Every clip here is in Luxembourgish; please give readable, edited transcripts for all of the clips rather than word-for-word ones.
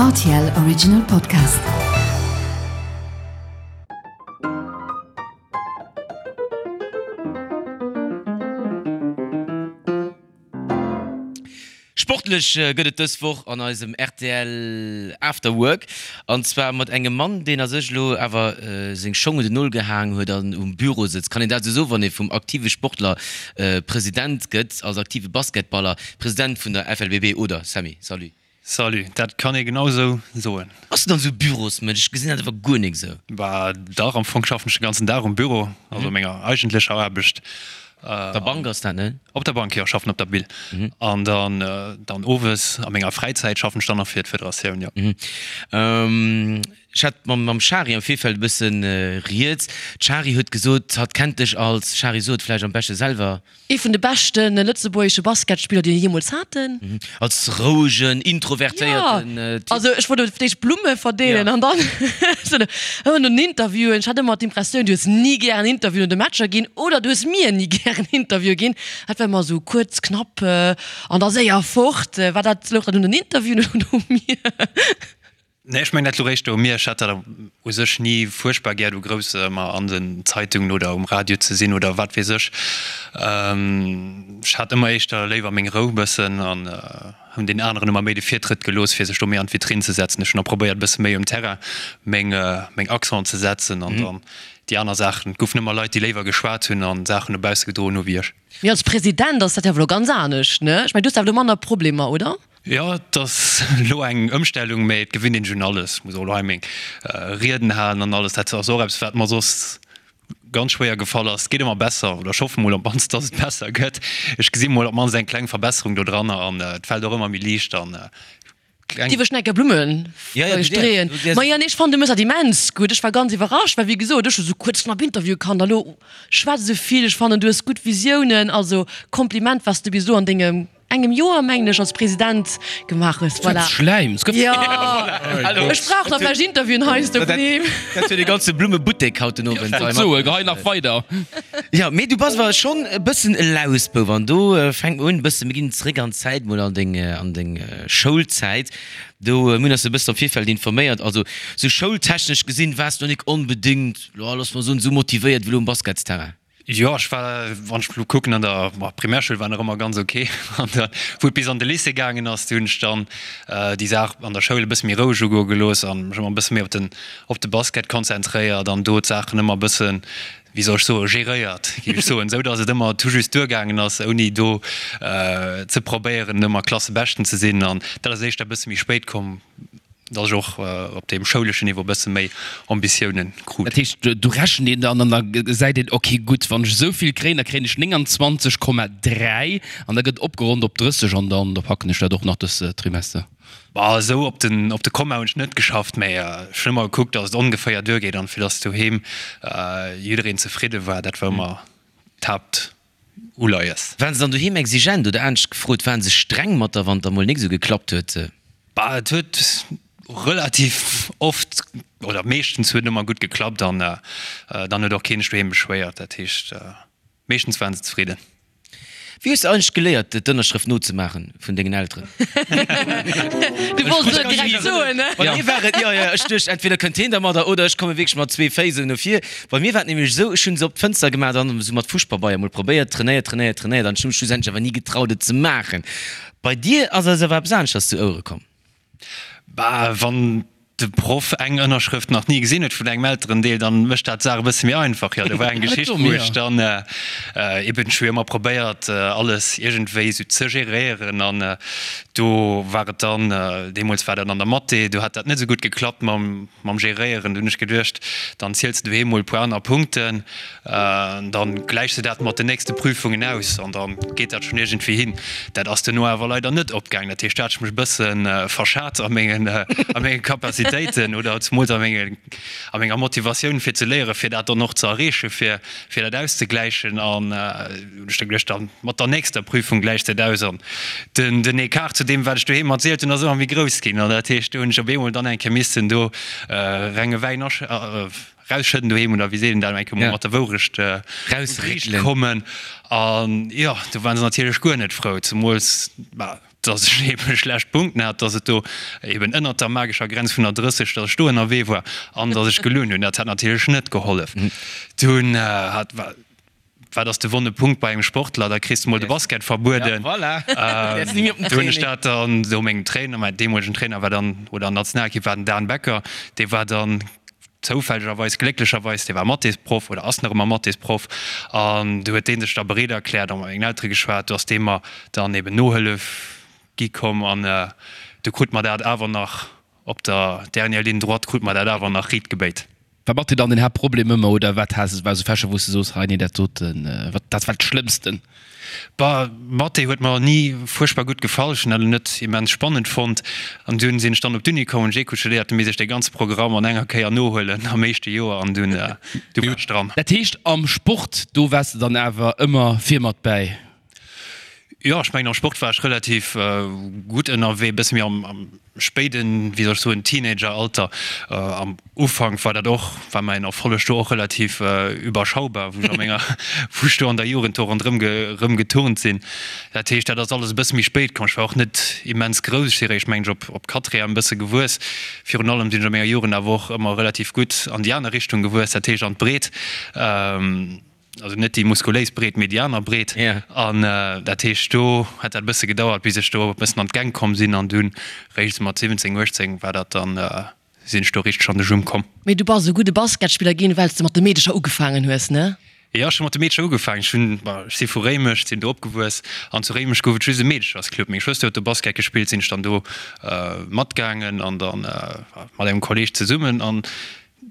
Rtl Original Podcast. Sportlech gëtt et dës Woch an eisem rtl After Work an zwar mat engem Mann, deen a sech elo awer seng Schong un den Nol gehaang huet an um Büro sëtzt. Kann een dat esou soen, wann ee vum aktive Sportler President gëtt, als aktive Basketballer President vun der FLBB, oder Sammy? Salut. Salut, dat kann ee genau esou soen. Bass du dann esou e Bürosmënsch? Ech gesinn dat awer guer nik esou. Bah dach, am Fong schaffen ech de ganzen Dag um Büro, also menger eigentlecher Aarbecht. Op der Bank ass dat, ne? Op der Bank, jo, schaffen op der Bill. An dann, dann owes a menger Fräizäit schaffen ech dann nach fir d'Federatioun, jo. Ech hat mam Shari am Virfeld e bëssen rieds. D'Shari huet gesot, hatt kennt dech als, Shari, so et vläicht am beschte selwer. Ee vun de beschte lëtzebuergesche Basketspiller, déi mir jeemools haten. Als rouegen, introvertéierten Typ. Jo, also ech wollt fir d'éischt Blumme verdeelen an dann ëmmer no den Interviewen. Ech hat ëmmer d'Impressioun, du hues ni gären Interviewen no de Matcher ginn oder du hues mir ni gären Interviewe ginn. Dat war ëmmer esou kuerz, knapp an da séier fort. War dat, louch dat un den Interviewen oder u mir? Nee, ech mengen dat lo réischt u mir. Ech hat dat u sech ni fuerchtbar gär, do grouss ëmmer an den Zeitungen oder um Radio ze sinn oder wat weess ech. Ech hat ëmmer éischter léiwer meng Rou bëssen an hunn den aneren ëmmer méi de Virtrëtt gelooss, fir sech do méi an d'Vitrinn ze setzen. Ech hunn da probéiert, e bësse méi um Terrain meng, meng Accenten ze setzen an dann déi aner Saachen. Et goufen ëmmer Leit, déi léiwer geschwat hunn an Saachen no bausse gedroen hu wéi ech. Mee als President ass dat jo awer elo ganz anescht, ne? Ech mengen, du hues awer elo manner Problemer, oder? Jo, et ass elo eng Ëmstellung, mä et gewinnt een sech un alles. Muss och elo hei meng Rieden halen an alles. Dat ass och eppes, wat mer soss ganz schwéier gefall ass. Et geet ëmmer besser, oder ech hoffe mol op d'mannst, dass et besser gëtt. Ech gesi mol op d'mannst eng kleng Verbesserung do dranner an et fält och ëmmer méi liicht an kleng. Dierf ech nach eng Kéier Blumme streeën? Ma jo, nee, ech fannen, du méchs dat immens gutt. Ech war ganz iwwerrascht, well wéi gesot, ech hu sou kuerz knapp Interviewe kannt a lo schwätz esou vill. Ech fannen, du hues gutt Visiounen. Also Kompliment, wat s de bis elo an dengem engem Joer, mengen ech, als President gemaach hues. Voilà. Schläim. Jo, ech brauch nach vläicht Interviewen heiansdo vun him. Dat huet e ganze Blummebuttek haut den Owend. Ech wollt soen, gehei nach weider. Jo, mee du bass awer schonn e bëssen e Lausbouf an do fänkt mer un e bëssen, mir ginn zeréck an d'Zäit mol, an deng, an deng Schoulzäit. Do, mir hunn eis e bëssen am Virfeld informéiert, also sou schoultechnesch gesinn waars du nik onbedéngt, jo, looss mer soen, sou motivéiert wéi elo um Basketsterrain. Jo, ech war, wann ech elo kucken, an der Primärschoul war nach ëmmer ganz ok. An da wou et bis an de Lycée gaangen ass, du hunn ech dann déi Saach an der Schoul e bësse méi roueg ugoe gelooss an mech ëmmer e bësse méi op den, op de Basket konzentréiert an do d'Saachen ëmmer e bëssen, wéi soll ech soen, geréiert, géif ech soen, esou datt et ëmmer tout juste duergaangen ass, ouni do ze probéieren ëmmer Klassebeschten ze sinn. An dat ass éischter e bësse méi spéit komm. Dass ech och op deem schouleschen Niveau e bësse méi Ambitiounen krut. Dat heescht, do rechent een dann an da gesäit een, ok gutt, wann ech esou vill kréien, da kréien ech 29,3 an da gëtt opgeronnt op 30 an dann da packen ech dat och nach dës Trimester. Bah, esou op den, op de Komma hunn ech net geschafft, mä ech hunn ëmmer gekuckt, dass et ongeféier duergeet an fir dass doheem jiddereen zefridde war. Dat war ëmmer d'Haaptuleies. Waren se dann doheem exigent oder anescht gefrot, waren se streng mat der, wann et da mol nik esou geklappt huet? Bah, et huet relativ oft oder meeschtens huet et ëmmer gutt geklappt an dann huet och keen sech doheem beschwéiert. Dat heescht, meeschtens waren se zefridden. Wéi hues de eigentlech geléiert, d'Ënnerschrëft nozemaachen vun dengen Elteren? Du wollts et direkt soen, ne? Bei mir war et, jo, jo, ech duecht, entweder kënnt heen dermadder oder ech komme wierklech mat zwee Féiss esou no vir. Bei mir war et nämlech esou, ech hunn se op d'Fënster gemaach an esou mat Fuschpabeier mol probéiert, trainéiert, trainéiert, trainéiert an ech hu mech schlussendlech awer ni getraut, et ze maachen. Bei dir ass eis awer eppes aneschters zu Ouere komm. Bah, wann de Proff eng Ënnerschrëft nach ni gesinn huet vun engem Elterendeel, dann mécht dat d'Saach e bësse méi einfach. Jo, do war eng Geschicht, wou ech dann eben, ech hu jo ëmmer probéiert, alles iergendwéi esou ze geréieren an do war et dann, deemools war dat an der Mathé, do hat dat net esou gutt geklappt mam, mam Geréieren. Do hunn ech geduecht, dann ziels de doheem mol e puer aner Punkten. Dann gläichs de dat mat den nächste Prüfungen aus an dann geet dat schonn iergendwéi hin. Dat ass duerno awer leider net opgaangen. Dat heescht, do hat ech mech e bësse verschat a mengen, a menge Capacitéiten oder zemools a menge, a menger Motivatioun fir ze léieren, fir dat dann och ze erreechen, fir, fir dat auszegläichen. An hunn ech da geduecht, dann mat der nächster Prüfung gläichs de et aus. An den, den Ecart zu deem, wat ech doheem erzielt hunn, ass ëmmer méi grouss ginn. An dat heescht, do hunn ech op eemol dann eng Kéier missen do renge Wäin asch. Rausschëdden doheem oder wéi seet een dat, eng Kéier mol mat der Wourecht un d'Riicht kommen. An jo, do waren se natierlech guer net frou, zemools, bah. Dass ech eebe schlecht Punkten hat, dass et do eeben ënnert der magescher Grenz vun der 30, dass ech do ënnerwee war an dass ech gelunn hunn. Dat hat natierlech net gehollef. Dunn hat, wat ass de wonne Punkt bei engem Sportler? Da kriss de mol de Basket verbueden. Do hunn ech dat dann do mengem Trainer, mäin deemolegen Trainer war dann, oder an der Nationalekipp war den Dan Becker, dee war dann zoufällegerweis, glécklecherweis, dee war Mathésproff oder ass nach ëmmer Mathésproff an du huet dee sech da bereet erkläert a mat mengen Eltere geschwat, do ass dee mer dann eben Nohëllef gi komm an du krut mer dat awer nach op der dernière ligne droite krut mer dat awer nach riit gebéit. War Mathé dann den Haaptproblem ëmmer oder wat has, war esou Fächer wou s de soos, hei nee dat doten, wat dat war d'Schlëmmsten? Bah, Mathé huet mer ni fuerchtbar gutt gefall, ech hunn dat net immens spannend fonnt. An dunn sinn ech dann op d'Uni komm, hunn ech Eco studéiert, du misst ech dee ganze Programm an enger Kéier nohuelen am éischte Joer an dunn, du war ech dran. Dat heescht am Sport, do waars de dann awer ëmmer vir mat bäi? Jo, ech mengen am Sport war ech relativ gutt ënnerwee, e bësse méi am spéiden, wéi soll ech soen, Teenageralter. Am Ufank war dat och, war mäin Erfolleg do och relativ überschaubar, wou ech a menger, wou ech do an der Jugend do ronderëm rëm geturnt sinn. Dat heescht, dat ass alles e bësse méi spéit komm. Ech war och net immens grouss, ech si réischt, mengen ech, op op Quatrième e bësse gewuess. Virun allem sinn ech a menger Jugend awer och ëmmer relativ gutt an déi aner Richtung gewuess, dat heescht an d'Breet. Also net déi muskuléis Breet, mee déi aner Breet. An dat heescht, do huet dat e bësse gedauert, bis ech do e bëssen an d'Gäng komm sinn. An dunn réischt esou mat 17, 18 war dat dann, sinn ech do richteg an de Jump komm. Mee du bass e gudde Basketspiller ginn, well s de mat de Meedecher ugefaangen hues, ne? Jo, ech hu mat de Meedecher ugefaangen. Ech hunn, bon, ech si vu Réimech, sinn do opgewuess. An zu Réimech gouf et just e Meedechersclub. Meng Schwëster huet do Basket gespillt, sinn ech dann do matgaangen an dann mat engem Kolleeg zesummen. An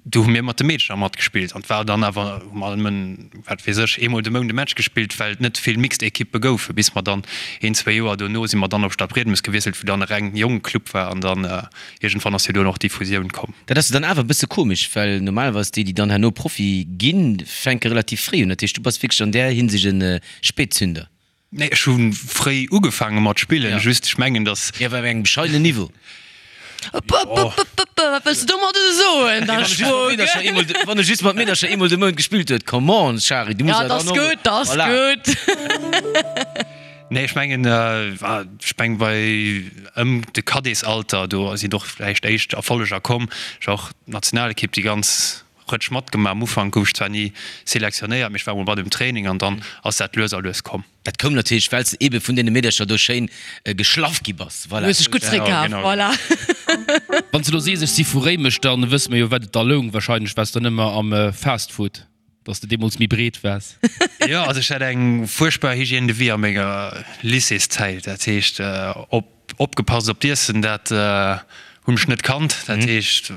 Do hu mir mat de Meedercher matgespillt an et war dann awer, hu mer nëmmen, wat weess ech, eemol de Mount e Match gespillt, well et net vill mixed Ekippe goufen. Bis mer dann een, zwéi Joer dono si mer dann op Stadbriedemes gewiesselt, wou dann e reng Jongeclub war an dann iergendwann ass jo dunn och déi Fusioun komm. Dat ass jo dann awer e bësse komesch, well normalerweis déi, déi dann herno Profi ginn, fänke relativ fréi un. Dat heescht, du bass wierklech an där Hinsicht e Spätzünder. Nee, ech hu fréi ugefaange mat spillen, just ech mengen dass. Jo, awer op engem bescheidenen Niveau. Wat wëlls de domadder soen da, Schwoger? Wann e just mat Meedercher eemol de Mount gespillt huet, come on, Shari, du muss awer dann och. Ja, 't ass gutt, 't ass gutt. Nee, ech mengen, ech meng bei ëm de Cadetsalter, do sinn och vläicht éischt Erfolleger komm. Ech war och d'Nationalekipp déi ganz Rëtsch matgemaach. Am Ufank gouf ech zwar ni selektionéiert, mee ech war emol mat um Training an dann ass dat lues a lues komm. Dat koum natierlech, well s de ebe vun deene Meedercher do schéin geschlaff gi bass. Voilà. Du hues dech gutt zeréckkaf, voilà. Wann s de elo sees, ech si vu Réimech, da wësse mer jo, wat et da loung. Wahrscheinlech waars de dann ëmmer am Fastfood, dass de deemools méi breet waars. Jo, also ech hat eng fuerchtbar Hygiène de vie a menger Lycéeszäit. Dat heescht, op Opgepasst op d'Iessen, dat hunn ech net kannt. Dat heescht,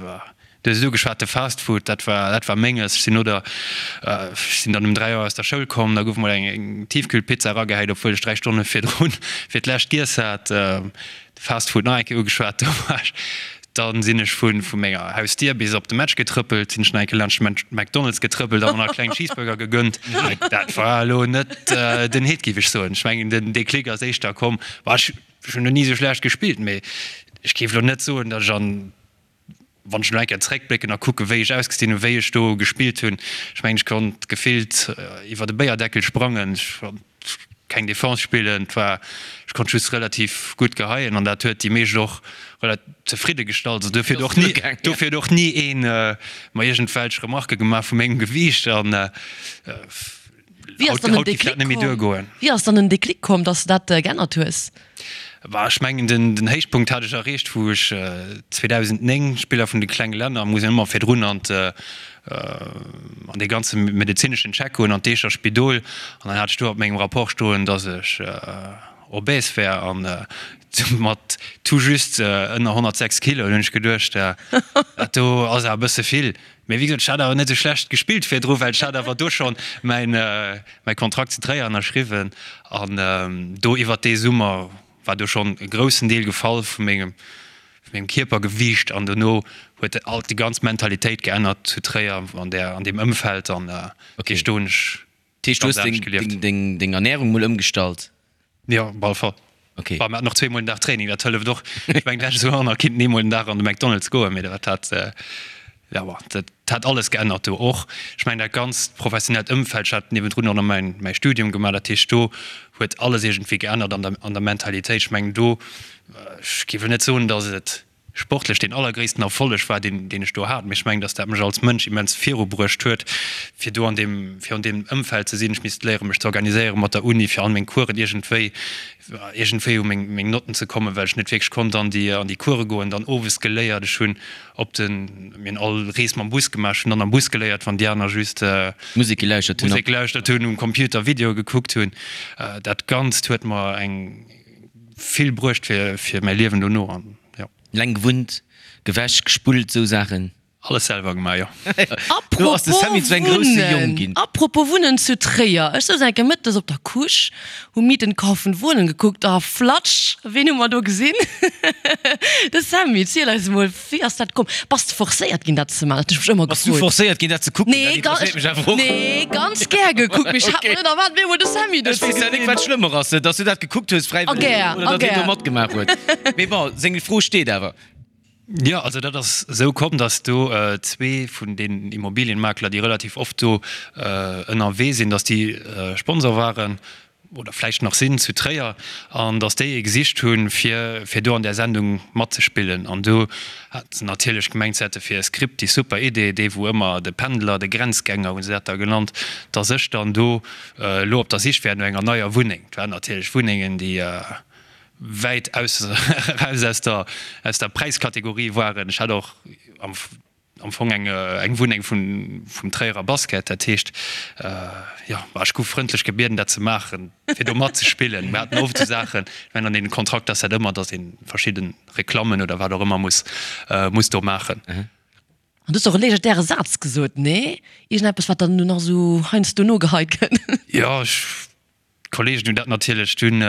du hues et ugeschwat, de Fast Food, dat war, dat war Menges. Ech sinn no der, ech sinn dann um 3 Auer aus der Schoul komm, da gouf mol eng Tiefkühlpizza eragehäit, obwuel ech 3 Stonne virdrun fir d'lescht giess hat. De Fast Food nach eng Kéier ugeschwat, do war ech, dann sinn ech vu vu menger Hausdier bis op de Match getrëppelt, sinn ech nach eng Kéier laanscht de McDonald's getrëppelt a mer nach e klengen Cheeseburger gegönnt. Dat war elo net den Hit, géif ech soen. Ech mengen, den Déclic ass éischter komm, Bah, ech hunn elo ni esou schlecht gespillt, mee ech géif elo net soen, datt ech an, wann ech elo eng Kéier zeréckblécken a kucken, wéi ech ausgesinn hunn, wéi ech do gespillt hunn, ech mengen, ech konnt gefillt iwwer e Béierdeckel sprangen, ech konnt keng Defense spillen, et war, ech konnt just relativ gutt geheien an dat huet déi meescht och relativ zefridde gestallt. Also dofir huet och ni, dofir huet och ni ee mer iergendwelch Remarquë gemaach vu mengem Gewiicht an. Wéi ass dann den Déclic komm? Wéi ass dann den Déclic komm, dass de dat geännert hues? Bah, ech mengen den den Héichpunkt hat ech erreecht, wou ech 2009 Spiller vun de klenge Länner muss een ëmmer virdrun an an dee ganze medezineschen Check goen an d'Eecher Spidol an dann hat ech do op mengem Rapport stoen, dass ech obèse wär an mat tout juste ënner 106 Kilo. Dunn hunn ech geduecht, dat do ass awer e bësse vill. Mee wéi gesot, ech hat awer net esou schlecht gespillt virdru, well ech hat awer do schonn mäin, mäi Kontrakt zu Tréier ënnerschriwwen an do iwwert dee Summer war do schonn e groussen Deel gefall vu mengem, vu mengem Kierpergewiicht an dono huet alt déi ganz Mentalitéit geännert zu Tréier an där, an deem Ëmfeld an okay, do hunn ech Dat heescht, du hues deng, deng, deng Ernärung mol ëmgestallt? Jo, op alle Fall. Okay. Bah, mir haten och zweemol den Dag Training, dat hëlleft och. Ech mengen, d'lescht Joer nach kinnt een eemol den Dag an de McDonald's goen, mee dat hat. Jo, bon, dat hat alles geännert do och. Ech mengen dat ganzt professionellt Ëmfeld, ech hat niewendrun och nach mäin, mäi Studium gemaach, dat heescht do huet alles iergendwéi geännert an der, an der Mentalitéit. Ech mengen do, ech géif elo net soen, datt et sportlech deen allergréissten Erfolleg war, deen, deen ech do hat, mee ech mengen, datt dat mech als Mënsch immens virubruecht huet, fir do an deem, fir an deem Ëmfeld ze sinn. Ech misst léieren, mech ze organiséieren mat der Uni, fir all meng Coursen iergendwéi, iergendwéi u meng, meng Notten ze kommen, well ech net wierklech konnt an déi, an déi Course goen. Dann owes geléiert, ech hunn op den, mir hunn all Rees mam Bus gemaach, ech hunn dann am Bus geléiert, wann déi aner just Musek gelauschtert hunn. Musek gelauschtert hunn, um Computer Videoe gekuckt hunn. Dat Ganzt huet mer eng vill bruecht fir, fir mäi Liewen dono an jo. Leng gewunnt, gewäsch, gespullt, sou Saachen? Alles selwer gemaach, jo. Do ass de Sammy zu engem grousse Jong ginn. Apropos Wunnen zu Tréier, ech souz eng Kéier mëttes op der Couche, hu Mieten, Kaufen, Wohnen gekuckt a flatsch, ween hu mer do gesinn? De Sammy. Ziel eis emol, wéi ass dat komm? Bass de forcéiert ginn dat ze maachen? Dat hunn ech mech ëmmer Bass du gefrot. forcéiert ginn dat ze kucken? Nee, Dat interesséiert mech awer och. nee, ganz gär gekuckt, mee ech hat mer net erwaart, op eemol de Sammy do Ech ze weess ja nik gesinn. wat schlëmmer ass, dass du dat gekuckt hues A fräiwëlleg gär, oder a datt hien do gär. matgemaach huet. Mee bon, seng Fro steet awer. Jo, also dat ass esou komm, datt do zwee vun den Immobilienmakler, déi relativ oft do ënnerwee sinn, datt déi Sponsor waren oder vläicht nach sinn zu Tréier an datt déi ee gesicht hunn, fir fir do an där Sendung matzespillen. An do hat se natierlech gemengt, se hätte fir e Skript déi super Idee, dee wou ëmmer de Pendler, de Grenzgänger hu se dat da genannt, datt ech dann do elo op der Sich wär no enger neier Wunneng. Et waren natierlech Wunnengen, déi wäit aus eraus aus der aus der Präiskategorie waren. Ech hat och am am Fong eng eng Wunneng vun vum Tréierer Basket, dat heescht jo, ma ech gouf frëndlech gebieden dat ze maachen, fir do matzespillen. Mir haten oft esou Saachen, ech mengen an deenen Kontrakt ass dat ëmmer, datt ee verschidde Reklammen oder wat och ëmmer muss muss do maachen. An du hues och e legendäre Saz gesot, nee? Iergendeppes wat dann elo nach esou heiansdo nogeheit gëtt. Jo, ech D'Kollegen hunn dat natierlech dunn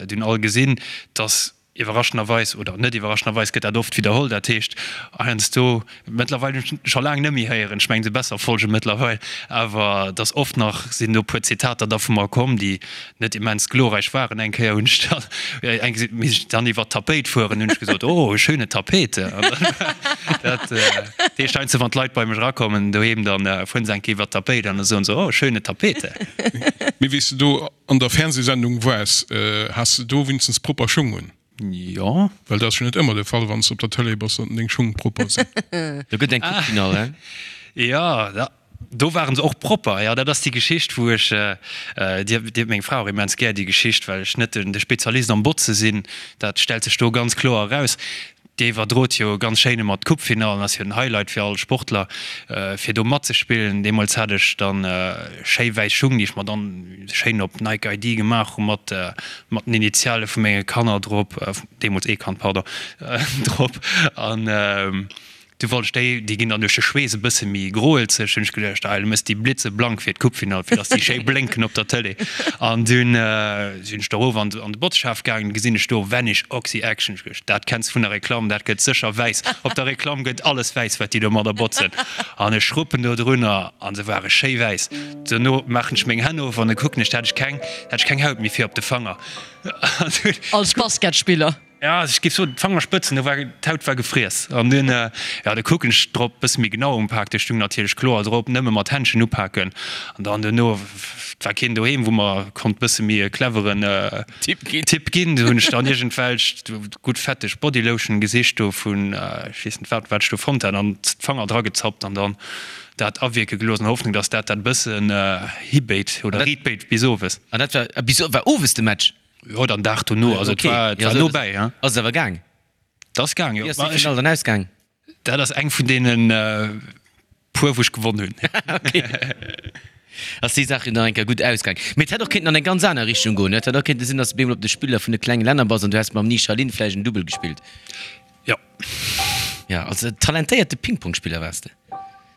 dunn all gesinn, dass iwwerraschenderweis, oder net iwwerraschenderweis gëtt dat oft widderholl, dat heescht heiansdo, mëttlerweil hunn ech scho laang net méi héieren, ech mengen se besser Folge mëttlerweil, awer dass oft nach sinn do puer Zitater da vu mer komm, déi net immens glorreich waren. Eng Kéier hunn ech dann eng misst ech dann iwwer d'Tapéit fueren, hunn ech gesot, oh schöne Tapete. An dann dat heescht heiansdo wann d'Leit bei mech erakommen doheem, dann fueren se eng Kéier iwwer d'Tapéit an da soen se, oh schöne Tapete. Mee wéi s de do an der Fernsehsendung waars, has de do winstens propper Schung un? Jo. Well dat ass jo net ëmmer de Fall, wann s de op der Tëlee bass, datt deng Schung propper sinn. Do gëtt eng Coupe Finale, hein? Jo, do waren se och propper. Jo, dat ass déi Geschicht, wou ech, déi huet meng Fra och immens gär, déi Geschicht, well ech net de Spezialist am Botze sinn, dat stellt sech do ganz kloer eraus. Déi iwwerdrot jo ganz schéin ëmmer d'Coupe-Finallen, ass jo den Highlight fir all Sportler fir do matzespillen. Deemools hat ech dann schéi wäiss Schung, déi ech mer dann schéin op Nike ID gemaach hu mat mat den Initiale vu menge Kanner drop, deemools ee Kand, pardon, drop an Du wollt ech déi, déi ginn dann duerch de Schweess e bësse méi groelzeg, hunn ech geduecht, ah, du mëss déi blitzeblank fir d'Coupe-Finall, fir dass déi schéi blénken op der Tëlee. An dunn sinn ech do erof an de Botzschaf gaangen, gesinn ech do Vanish Oxy Action. Ech geduecht, dat kenns vun der Reklamm, dat gëtt sécher wäiss. Op der Reklamm gëtt alles wäiss, wat déi domadder botzen. An ech schruppen do drunner a se ware schéi wäiss. Dono maachen ech meng Hänn of an da kucken ech, da hat ech keng, da hat ech keng Haut méi fir op de Fanger. An dunn. Als Basketspiller. Ja, ech géif soen, d'Fangerspëtzen, do war, d'Haut war gefriess. An dunn, jo, da kucken ech drop, bësse méi genau umpaakt, do stung natierlech kloer drop, nëmme mat Händschen upaken. An dann duerno, et war keen doheem, wou mer konnt bësse méi e cleveren Tipp ginn. Tipp ginn. Du hunn ech dann iergendwelch gutt fetteg Bodylotion gesicht do vun, ech weess net wat, wat ech do fonnt hat, an d'Fanger dragezappt an dann dat awierke gelooss an der Hoffnung, dass dat dat bëssen hibéit oder riitbéit bis owes. An dat war bis, war owes de Match? Jo, dann Dag dono, also et war, et war nobäi, hein. Ass et awer gaang? Et ass gaang, jo. Wéi ass déi Finall dann ausgaang? Dat ass eng vun deene puer, wou ech gewonn hunn. Ok. Ass déi Saach jo nach eng Kéier gutt ausgaang. Mee et hätt och kéinten an eng ganz aner Richtung goen. Et hätt och kéinte sinn, datt s de bemol op de Spiller vun de klenge Länner bass an du häss mam Ni Shalin vläicht en Dubbel gespillt. Jo. Jo, also talentéierte Ping-Pong-Spiller waars de.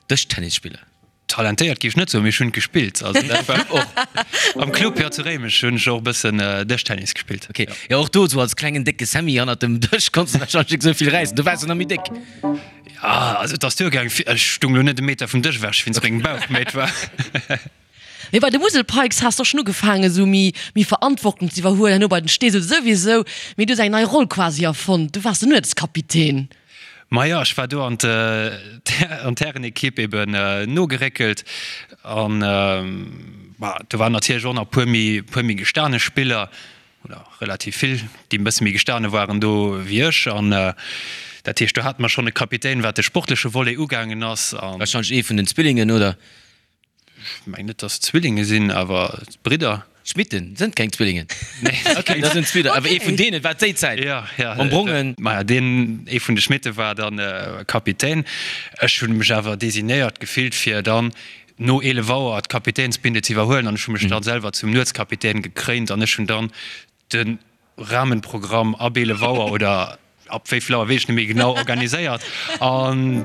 Dëschtennisspiller. Talentéiert géif ech net soen, mee ech hunn gespillt. Also dat war och am Club, jo, zu Réimech hunn ech och e bëssen Dëschtennis gespillt. Ok, jo och do esou als klengen décke Sammy hannert dem Dësch konns de wahrscheinlech net esou vill räissen, do waars de nach méi déck. Jo, also et ass duergaang, ech stung lo net e Meter vum Dësch ewech wéinst mengem Bauch, mee et war. Mee bei de Musel Pikes has de och schonn ugefaangen esou méi méi Verantwortung ze iwwerhuelen, herno bei den Steesel souwisou, mee du hues eng nei Roll quasi erfonnt, du waars den Nuetskapitän. Majo, ech war do an d'Härenekipp eben nogeréckelt an do waren natierlech och nach e puer méi, puer méi gestane Spiller oder relativ vill, déi e bësse méi gestane waren do wéi ech. An dat heescht, do hate mer schonn e Kapitän, wat de sportleche Volet ugaangen ass. Warscheinlech ee vun den Zwillingen, oder? Ech mengen net, dass et Zwillinge sinn, awer Bridder. Schmitten sënn keng Zwillingen. Nee, okay, dat sinn Zwiller, awer ee vun deenen war déi Zäit. Ja, ja. Mam Brongen. Maja, deen ee vun de Schmitte war dann Kapitän. Ech hunn mech awer designéiert gefillt, fir dann no 11 Auer d'Kapitänsbinde ze iwwerhuelen an ech hu mech dann selwer zum Nuetskapitän gekréint an ech hunn dann de Rahmenprogramm ab 11 Auer oder ab wéi vill Auer weess ech net méi genau organiséiert an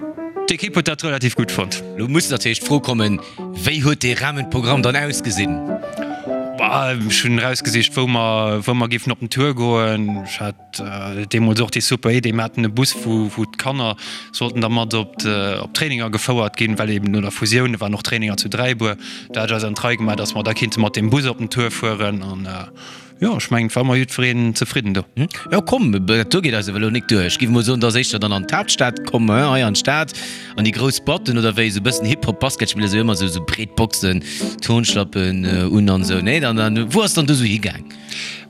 d'Ekipp huet dat relativ gutt fonnt. Lo muss natierlech d'Fro kommen, wéi huet dee Rahmenprogramm dann ausgesinn? Bah, ech hunn erausgesicht wou mer wou mer géifen op den Tour goen. Ech hat deemools och déi super Idee, mir haten e Bus wou wou d'Kanner sollten da mat op op d'Traininger gefouert ginn, well eben no der Fusioun, do waren och Traininger zu Dräibuer, do hat ech eis an d'Rei gemaach, datt mer da kinnte mat deem Bus op den Tour fueren an Jo, ech mengen, et war ëmmer jiddwereen zefridden do. Jo, komm, dat do geet eis awer elo nik duer. Ech géif emol soen, dass éischter dann an d'Haaptstad komm, hein, hei an d'Stad, an déi grouss Boîten oder wéi, esou e bëssen Hip-Hop-Basketspiller, esou ëmmer esou, esou breet Boxen, Turnschlappen un an esou, nee? Dann, dann, wou ass dann du esou higaang?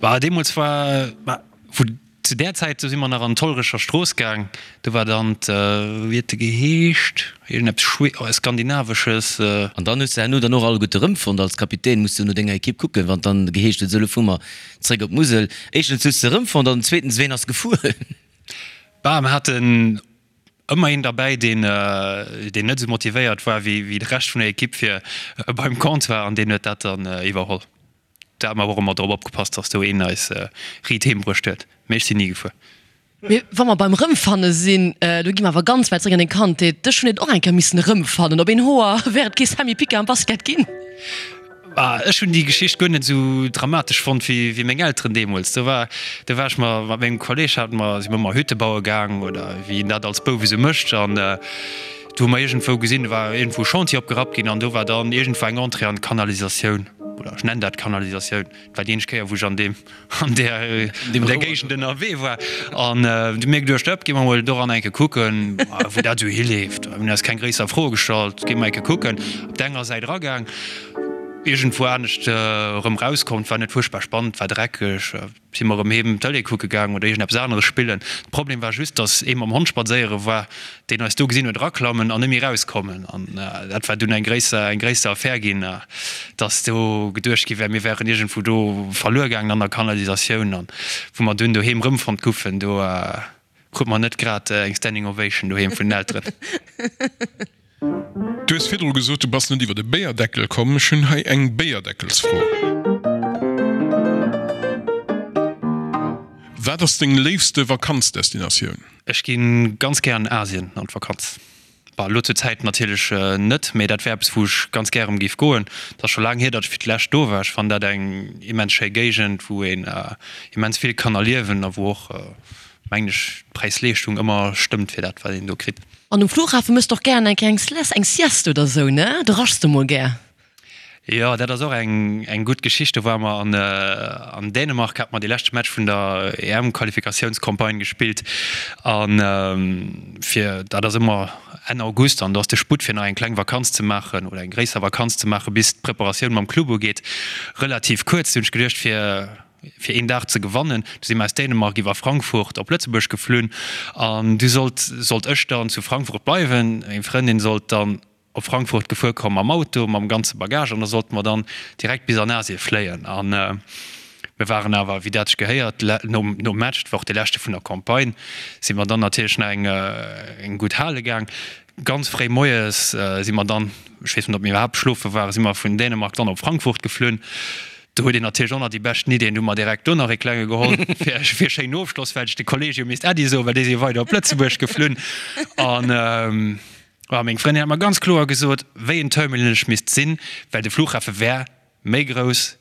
Bah, deemools war, bah, wou. Zu där Zäit, do si mer nach an d'Hollerecher Strooss gaang, do war dann d', wéi huet de geheescht, iergendeppes Schwe, Skandinavesches. An dann hues de herno dann och alleguerte erëmfonnt. Als Kapitän muss du no denger Ekipp kucken, wann dann geheescht huet, esou elo fuere mer zréck op d'Musel. Éischtens hues de erëmfonnt an zweetens, ween ass gefuer? Bah, mer haten ëmmer een derbäi, deen, deen net esou motivéiert war wéi de Rescht vun der Ekipp fir beim Comptoir an deen huet dat dann iwwerholl. Da hu mer awer och ëmmer drop opgepasst, dass do een eis riit heem bruecht huet. Mee ech sinn ni gefuer. Mee wa mer beim Rëmfanne sinn, do gi mer awer ganz wäit zeréck an deng Kandheet. Dech hunn et och eng Kéier missen erëmfannen. Op een Hoer wär et kee Sammy Picard am Basket ginn. Ech hunn déi Geschicht guer net esou dramatesch fonnt wéi meng Elteren deemools. Do war, do war ech mat mengem Kolleg, hate mer, si mer ëmmer Hütte baue gaang oder wéi een dat als Bouf esou mécht. An do hu mer iergendwou gesinn, do war iergendwou e Chantier opgerappt ginn an do war dann iergendwou eng Entrée an d'Kanalisatioun. Oder ech nennen dat Kanalisatioun, et war déi eenzeg Kéier, wou ech an deem, an där, an där Géigend ënnerwee war. An du mir geduecht, Ëpp, gi mer mol doran eng Kéier kucken, wou dat esou hileeft. Mir hunn eis keng gréisser Froe gestallt, gi mer eng Kéier kucken. Op der enger Säit eragaang, iergendwou anescht erëm erauskomm. Et war net fuerchtbar spannend, war dreckeg. Si mer erëm heem Tëlee kucke gaang oder iergendeppes aneres spillen. De Problem war just, dass ee mam Hond spadséiere war, deen eis do gesinn huet eraklammen an net méi erauskommen. An dat war dunn eng gréisser, eng gréisser Affär ginn, dass do geduecht gi wär, mir wären iergendwou do verluer gaangen an der Kanalisatioun. An wou mer dunn doheem erëmfonnt goufen, do krut mer net grad eng Standing Ovation doheem vun den Elteren. Du hues virdru gesot, du bass net iwwer de Béierdeckel komm. Ech hunn hei eng Béierdeckelsfro. Wat ass deng léifste Vakanzdestinatioun? Ech gi ganz gär an Asien an d'Vakanz. Bah, elo zur Zäit natierlech net, mee dat wär eppes, wou ech ganz gär erëm géif goen. Et ass scho laang hier, datt ech fir d'lescht do war. Ech fannen dat eng immens schéi Géigend, wou een immens vill kann erliewen a wou och, mengen ech, d'Präis-Leeschtung ëmmer stëmmt fir dat, wat een do kritt. An um Flughafen mëss de och gären eng kleng eng Sieste oder sou, ne? Do raschs de mol gär. Jo, dat ass och eng eng gutt Geschicht. Do ware mer an an Dänemark, hate mer dee leschte Match vun der EM-Qualifikatiounscampagne gespillt. An fir, dat ass ëmmer Enn August, an do ass de Sputt fir nach eng kleng Vakanz ze maachen oder eng gréisser Vakanz ze maachen, bis d'Preparatioun mam Club ugeet, relativ kuerz. Du hunn ech geduecht, fir fir een Dag ze gewannen. Du si mer aus Dänemark iwwer Frankfurt op Lëtzebuerg geflunn an du sollt sollt ech dann zu Frankfurt bleiwen. Meng Frëndin sollt dann op Frankfurt gefuer kommen mam Auto, mam ganze Bagage an da sollte mer dann direkt bis an Asie fléien. An mir waren awer, wéi dat sech gehéiert, nom nom Match, dat war och dee leschte vun der Campagne, si mer dann natierlech nach eng eng gutt hale gaang. Ganz fréi moies si mer dann, ech weess net, ob mir iwwerhaapt schlofe waren, si mer vun Dänemark dann op Frankfurt geflunn. Do huet een natierlech och nach déi beschten Ideen. Du hu mer direkt do nach ee klenge geholl fir fir schéinen Ofschloss, well ech de Kolleeg jo misst Äddi soen, well déi si jo weider op Lëtzebuerg geflunn. An ah, meng Frëndin hat mer ganz kloer gesot, wéi en Terminal ech misst sinn, well de Flughafe wär méi grouss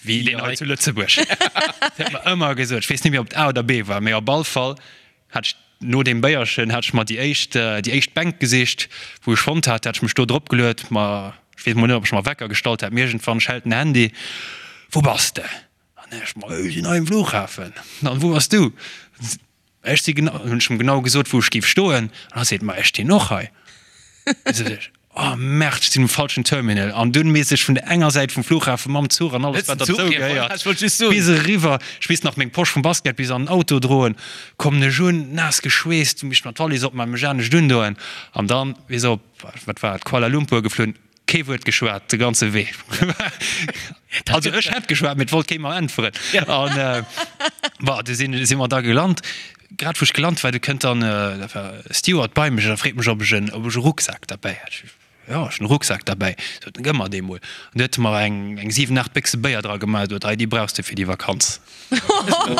wéi deen hei zu Lëtzebuerg. Dat huet mer ëmmer gesot. Ech weess net méi, ob et A oder B war, mee op all Fall hat ech no deem Béierchen hat ech mer déi éischt, déi éischt Bänk gesicht, wou ech fonnt hat, hat ech mech do drop geluet, ma ech weess mol net, ob ech mer Wecker gestallt hat, mee iergendwann schellt den Handy, Wou bass de? An ech, Ma ech sinn hei um Flughafen. An wou bass du? Ech si genau, hunn ech em genau gesot, wou ech géif stoen. An hatt seet, Ma ech stinn och hei. Du sot ech, Oh Merde, ech sinn um falschen Terminal. An dunn misst ech vun der enger Säit vum Flughafen mam Zuch an alles, wat derzou gehéiert, bis eriwwer. Ech misst nach meng Posch vum Basket bis an den Auto droen. Kommen ech un, naass geschweesst, misst mer d'Wallis opmaachen, mech anescht undoen. An dann bis op, wat war et, Kuala Lumpur geflunn. Kee Wuert geschwat de ganze Wee. Also ech hätt geschwat, mee et wollt kee mer äntweren. An bon, du sinn, si mer da gelant. Grad wou ech gelant war, du kënnt dann dat war e Steward bei mech a freet mech, ob ech en, ob ech e Rucksak derbäi hätt. Ech, Jo, ech hunn e Rucksak derbäi. Sot en, Gëmm mer dee mol. An du huet e mer eng, eng 7, 8 Béchse Béier dra gemaach. Sot, Hei, déi brauchs de fir déi Vakanz. Jo,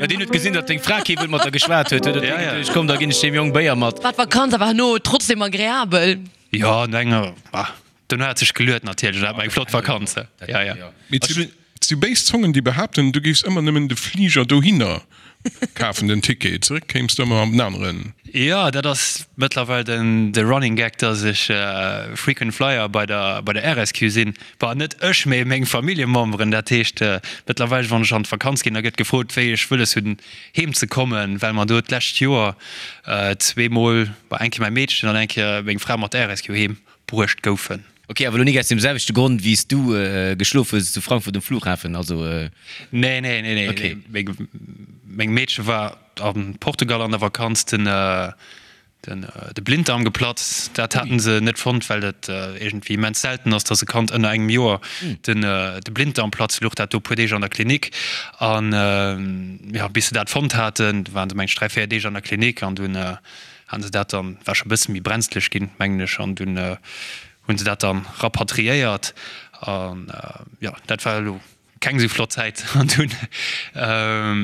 deen huet gesinn, datt deng Fra kee Wuert mat der geschwat huet, huet e geduecht, Komm, da ginn ech deem Jong Béier mat. War d'Vakanz awer herno trotzdem agreabel? Jo, no enger, bah, dono hat sech geluet natierlech, an hat mer eng flott Vakanz, jo, jo. Mee et si béis Zongen, déi behaapten, du géifs ëmmer nëmmen de Fliger dohinner kafen, den Ticket, zeréck kéims de ëmmer am aneren. Jo, dat ass mëttlerweil den de Running Gag, dass ech Frequent Flyer bei der bei der RSQ sinn. Bah, net ech, mee meng Familljememberen. Dat heescht, mëttlerweil, wann ech an d'Vakanz ginn, da gëtt gefrot, wéi ech wëlles hunn heem ze kommen, well mer do d'lescht Joer zweemol, bah, eng Kéier mäi Meedchen an eng Kéier meng Fra mat der RSQ heem bruecht goufen. Ok, awer elo nik aus deem selwechte Grond wéi s du geschlof hues zu Frankfurt um Flughafen, also? Nee, nee, nee, nee. Ok. Meng, meng Meedche war a Portugal an der Vakanz, den, Den de Blinddarm geplatzt, dat haten se net fonnt, well et iergendwéi immens selten ass, dass e Kand ënner engem Joer den de Blinddarm platzt. Louch dat do e puer Deeg an der Klinik an jo, bis se dat fonnt haten, du waren se meng ech 3, 4 Deeg an der Klinik an dunn haten se dat dann, war scho e bësse méi brenzlech ginn, mengen ech, an dunn hunn se dat dann rapatriéiert an jo, dat war elo Keng esou flott Zäit an dunn,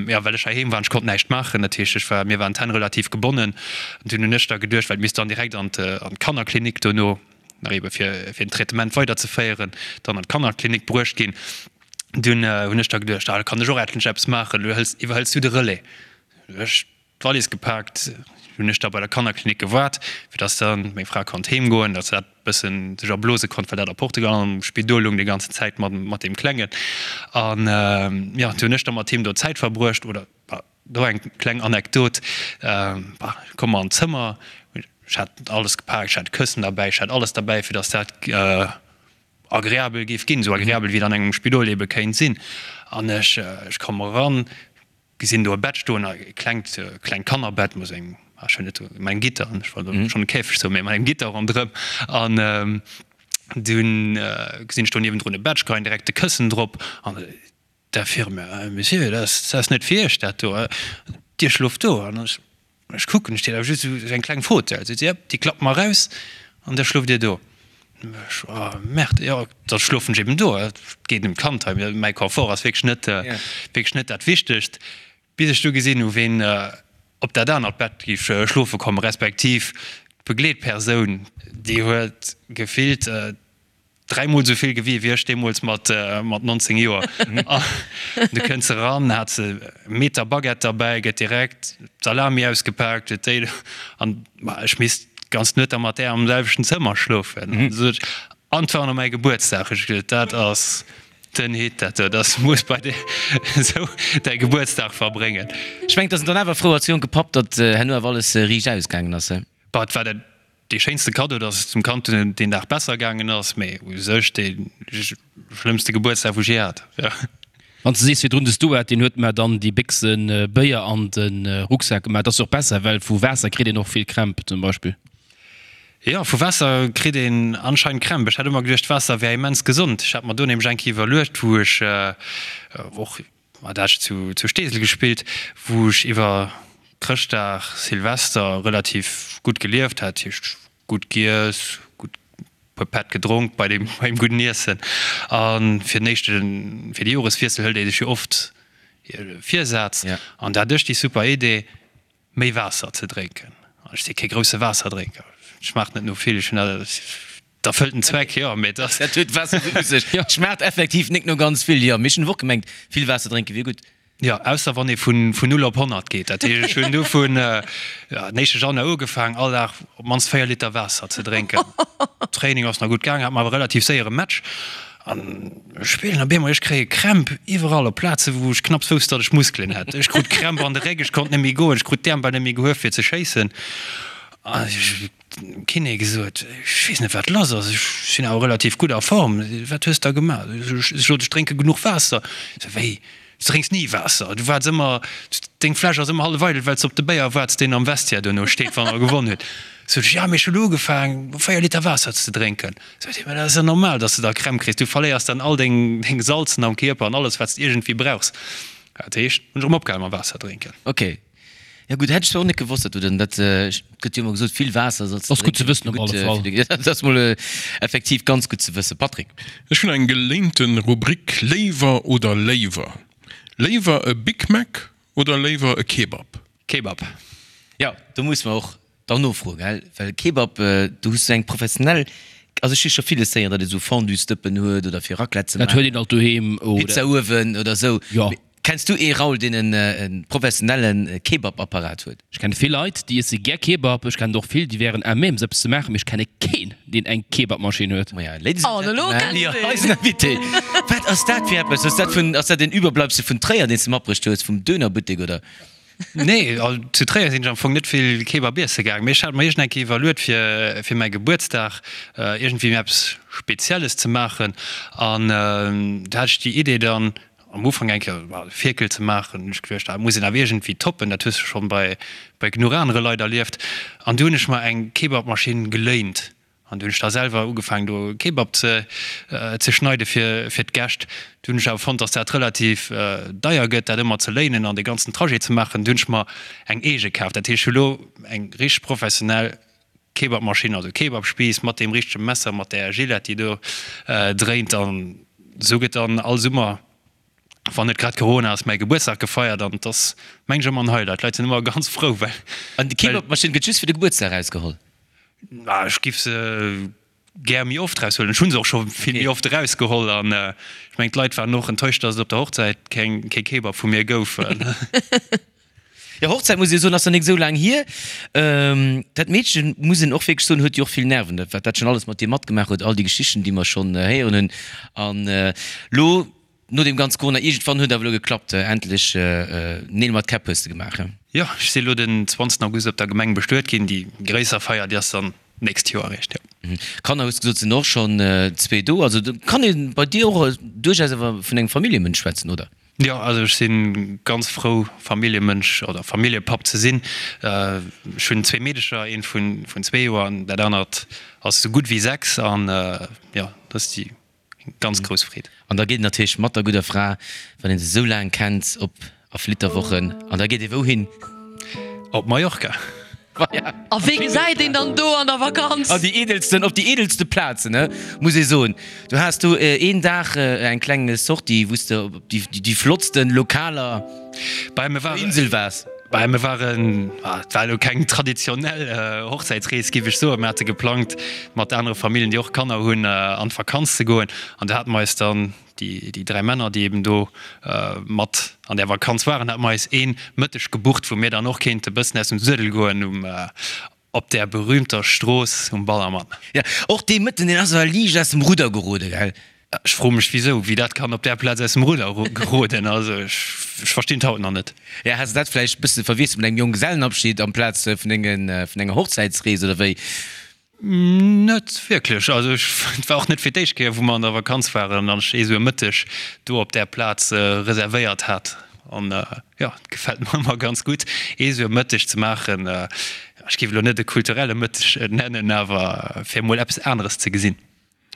jo, well ech heiheem war an ech konnt näischt maachen, dat heescht ech war, mir waren d'Hänn relativ gebonnen. An dunn hunn ech da geduecht, well et misst dann direkt an d'Kannerklinik dono, nach ebe fir fir den Traitement weiderzeféieren, dann an d'Kannerklinik bruecht ginn. Dunn hunn ech da geduecht, ah da kann ech och endlech eppes maachen, elo hëls, iwwerhëls du de Relais. Ech D'Wallis gepaakt, hunn ech da bei der Kannerklinik gewaart, fir dass dann meng Fra konnt heem goen, dass se dat bëssen sech erblose konnt, well dat a Portugal am Spidol lung déi ganzen Zäit mat mat deem Klengen. An jo, du hunn ech da mat him do Zäit verbruecht. Oder do eng kleng Anekdot, bah, komm mer an d'Zëmmer, ech hat alles gepaakt, ech hat Këssen derbäi, ech hat alles derbäi, fir dass dat agreabel géif ginn, esou agreabel wéi et an engem Spidol ebe kéint sinn. An ech ech komm eran, Gesinn do e Bett stoen, e klengt, klengt Kannerbett mat engem, ah ech hunn net, mat engem Gitter, ech wollt elo schonn e Käfeg soen, mee mat engem Gitter ronderëm. An dunn gesinn ech do niewendrun e Bett, ech geheien direkt de Këssen drop an d'Infirmière, Monsieur, dat ass, dat ass net fir Iech dat do, Dir schloft do. An ech, ech kucken, et steet awer just esou eng kleng Fauteuil. Seet si, Jep, déi klappe mer eraus an da schloft Dir do. Ech, Oh Merde, jo, da schlofen ech eben do. Et geet ëm d'Kand hei, mäi Confort ass wierklech net, wierklech net dat Wichtegst. Bis ech du gesinn hu ween op dat anert Bett géif schlofe kommen, respektiv d'Begleetpersoun, déi huet gefillt dräimol esou vill gewien wéi ech deemools mat 19 Joer. An du kënns eran, hat se e Meter Baguette derbäi, gëtt direkt d'Salami ausgepaakt, huet déi an ma ech misst d'ganz Nuet da mat där am selwechten Zëmmer schlofen. An du sot ech, an et war och nach mäi Gebuertsdag. Ech gesot, dat ass den Hit, dat do, dass muss bei dir esou däi Gebuertsdag verbréngen. Ech mengen, et ass en dann awer frou als jonke Papp, datt herno awer alles riicht ausgaangen ass, he? Bah, et war dat Dee schéinste Kaddo, dass et dem Kand deen Dag besser gaangen ass, mee u sech dee schlëmmste Gebuertsdag, wou ech je hat. Wann s de sees virdrun, de Stuart, deen huet mer dann déi Béchse Béier an de Rucksak gemaach, dat ass jo och besser, well vu Waasser kritt een och vill Krämp zum Beispill. Jo, vu Waasser kritt een anscheinend Krämp. Ech hat ëmmer geduecht, Waasser wär immens gesond. Ech hat mer do nämlech eng Kéier iwwerluecht, wou ech och Mat Esch zu Steesel gespillt, wou ech iwwer Chrëschtdag, Silvester relativ gutt gelieft hat, heescht gutt giess, gutt puer Pätt gedronk bei dem beim gudden Iessen. A fir den éischte fir de Joreswiessel hëlt ee sech jo oft e Virsaz an da hat ech déi super Idee, méi Waasser ze drénken. Ech si kee grousse Waasserdrénker, et schmaacht net no vill, ech hunn dat erfëllt den Zweck, jo, mee et ass. Dat huet Waasser sou u sech. Et schmaacht effektiv nik no ganz vill, jo, mee ech hunn och gemengt, vill Waasser drénke wier gutt. Jo, ausser wann ee vun 0 op 100 geet. Dat heescht, ech hunn du vun den éischte Januar ugefaang, all Dag op d'mannst 4 Liter Waasser ze drénken. Training ass nach gutt gaangen, hat mer awer relativ séier e Match. An ech spillen op eemol, ech kréie Krämp iwwerall op Plaze wou ech knapps wousst, datt ech Muskelen hätt. Ech krut Krämp an de Réck, ech konnt net méi goen, ech krut d'Äerm bal net méi gehuef fir ze schéissen. An ech dem Kiné gesot, ech weess net wat lass ass, ech sinn awer relativ gutt a Form, wat hues da gemaach? Ech sot, ech drénke genuch Waasser. Se, wéi, du drénks ni Waasser, du waarts ëmmer, deng Fläsch ass ëmmer hallef eidel, well s de op de Béier waarts, deen am Vestiaire duerno steet, wann der gewonn hutt. Sot ech, ja, mee ech hunn ugefaang, 4 Liter Waasser ze drénken. Sot hien, mä dat ass jo normal, datt s de da Krämp kriss, du verléiers dann all deng Salzen am Kierper an alles, wat s de iergendwéi brauchs. Dat heescht, hunn ech erëm opgehal mam Waasser drénken. Ok. Jo gutt, hätt ech zwar och net gewosst, datt du dann dat, et gëtt jo ëmmer gesot, vill Waasser solls de Ass gutt ze drénken, wëssen op gutt alle Fall. fir de, dat ass mol effektiv ganz gutt ze wëssen. Patrick. Ech hunn eng geléinte Rubrik, Léiwer oder léiwer? Léiwer e Big Mac oder léiwer e Kebab? Kebab. Jo, do muss mer och dann nofroen, gell, well Kebab, do hues du eng professionell, also ech hu scho villes héieren, datt ee sou Fondue-Stëppen huet oder fir Raclette ze Dat huet maachen, een alt doheem oder. Pizza-Uewen oder sou. Jo. Mee kenns du ee, Raoul, deen en e professionelle Kebab-Apparat huet? Ech kenne vill Leit, déi iesse gär Kebab. Ech kennen och vill, déi wären à même, se eppes ze maachen, mee ech kenne keen, deen eng Kebabmaschinn huet. Maja, Ladies and An elo Gentlemen, kennt jo, een. eisen Invité. Wat ass dat fir eppes? Ass dat vun, ass dat en Überbleibsel vun Tréier, deen s de matbruecht hues, vum Dönerbuttek, oder? Nee, zu Tréier sinn ech am Fong net vill Kebab iesse gaang, mee ech hat mer iergend eng Kéier iwwerluet fir fir mäi Gebuertsdag iergendwéi eppes Spezielles ze maachen an do hat ech déi Idee dann am Ufank eng Kéier e Fierkel ze maachen. Hunn ech geduecht, dat muss een awer iergendwéi toppen, dat hues de schonn bei bei genuch anere Leit erlieft an du hunn ech mer eng Kebabmaschinn geléint An du hunn ech da selwer ugefaangen do Kebab ze ze schneide fir fir d'Gäscht. Du hunn ech awer fonnt, dass dat relativ deier gëtt, dat ëmmer ze léinen an dee ganzen Trajet ze maachen. Du hunn ech mer eng eege kaf. Dat heescht, ech hu lo eng richteg professionell Kebabmaschinn, also Kebabspiiss mat deem richtege Messer, mat där Gillette, déi do dréint. An esou gëtt dann all Summer, wann net grad Corona ass, mäi Gebuertsdag gefeiert. An et ass, meng ech, ëmmer en Highlight. D'Leit sinn ëmmer ganz frou, well. An déi Kebabmaschinn gëtt just fir de Gebuertsdag erausgeholl? Ah, ech giff se gär méi oft raushuelen. Ech hunn se och scho vill méi oft erausgeholl an ech mengen d'Leit waren och enttäuscht, dass et op der Hochzäit keng kee Kebab vu mir gouf. Jo, Hochzäit muss ee soen, ass nach nik esou laang hier. Dat Meedchen, muss een och wierklech soen, huet jo och vill Nerven, dat wat dat schonn alles mat dir matgemaach huet, all déi Geschichten, déi mer schonn héieren hunn. An lo No deem ganz Corona, iergendwann huet awer elo geklappt, endlech Neel mat Käpp hues de gemaach, he? Jo, ech si elo den 20 August op der Gemeng bestuet ginn. Déi gréisser Feier, déi ass dann d'nächst Joer eréischt, jo. Kanner hues de gesot, sinn och schonn zwee do. Also do kann ee bei dir och duerchaus awer vun engem Familljemënsch schwätzen, oder? Jo, also ech si ganz frou Familljemënsch oder Familljepapp ze sinn. Ech hunn zwee Meedecher, eent vun zwee Joer an dat anert ass esou gutt wéi 6 an jo, dat ass déi Ganz grouss Freed. An da geet een natierlech mat der gudder Fra, wann een se esou laang kennt, op a Flitterwochen. An da geet ee wouhin? Op Mallorca. Voilà. A wee gesäit een dann do an der Vakanz? An déi eedelsten, op déi eedelste Plazen, ne, muss ee soen. Du has do een Dag eng kleng Sortie, wou s de op déi, déi flottsten Lokaler op der Insel waars. Bah, mir waren, et war elo keng traditionell Hochzäitsrees, géif ech soen. Mir hate geplangt, mat anere Familljen, déi och Kanner hunn, an d'Vakanz ze goen. An do hate mer eis dann, déi dräi Männer, déi eben do mat an där Vakanz waren, hate mer eis ee Mëtteg gebucht, wou mir dann och kéinte bëssen aus dem Suedel goen um, Op där berühmter Strooss um Ballermann. Jo, och dee Mëtten, deen ass awer liicht aus dem Rudder gerode, gell? Ech froe mech wisou, wéi dat kann op där Plaz aus dem Rudder geroden. Also ech verstinn et haut nach net. Ja, has de dat vläicht bësse verwiesselt mat engem Jonggesellenabschied amplaz vun dengen, vun enger Hochzäitsrees oder wéi? Net wierklech. Also ech, et war och net fir d'éischt Kéier wou mer an der Vakanz waren an ech ee sou e Mëtteg do op där Plaz reservéiert hat. An jo, et gefält mer ëmmer ganz gutt, ee sou e Mëtteg ze maachen. Ech géif elo net e kulturelle Mëtteg nennen, awer fir emol eppes aneres ze gesinn.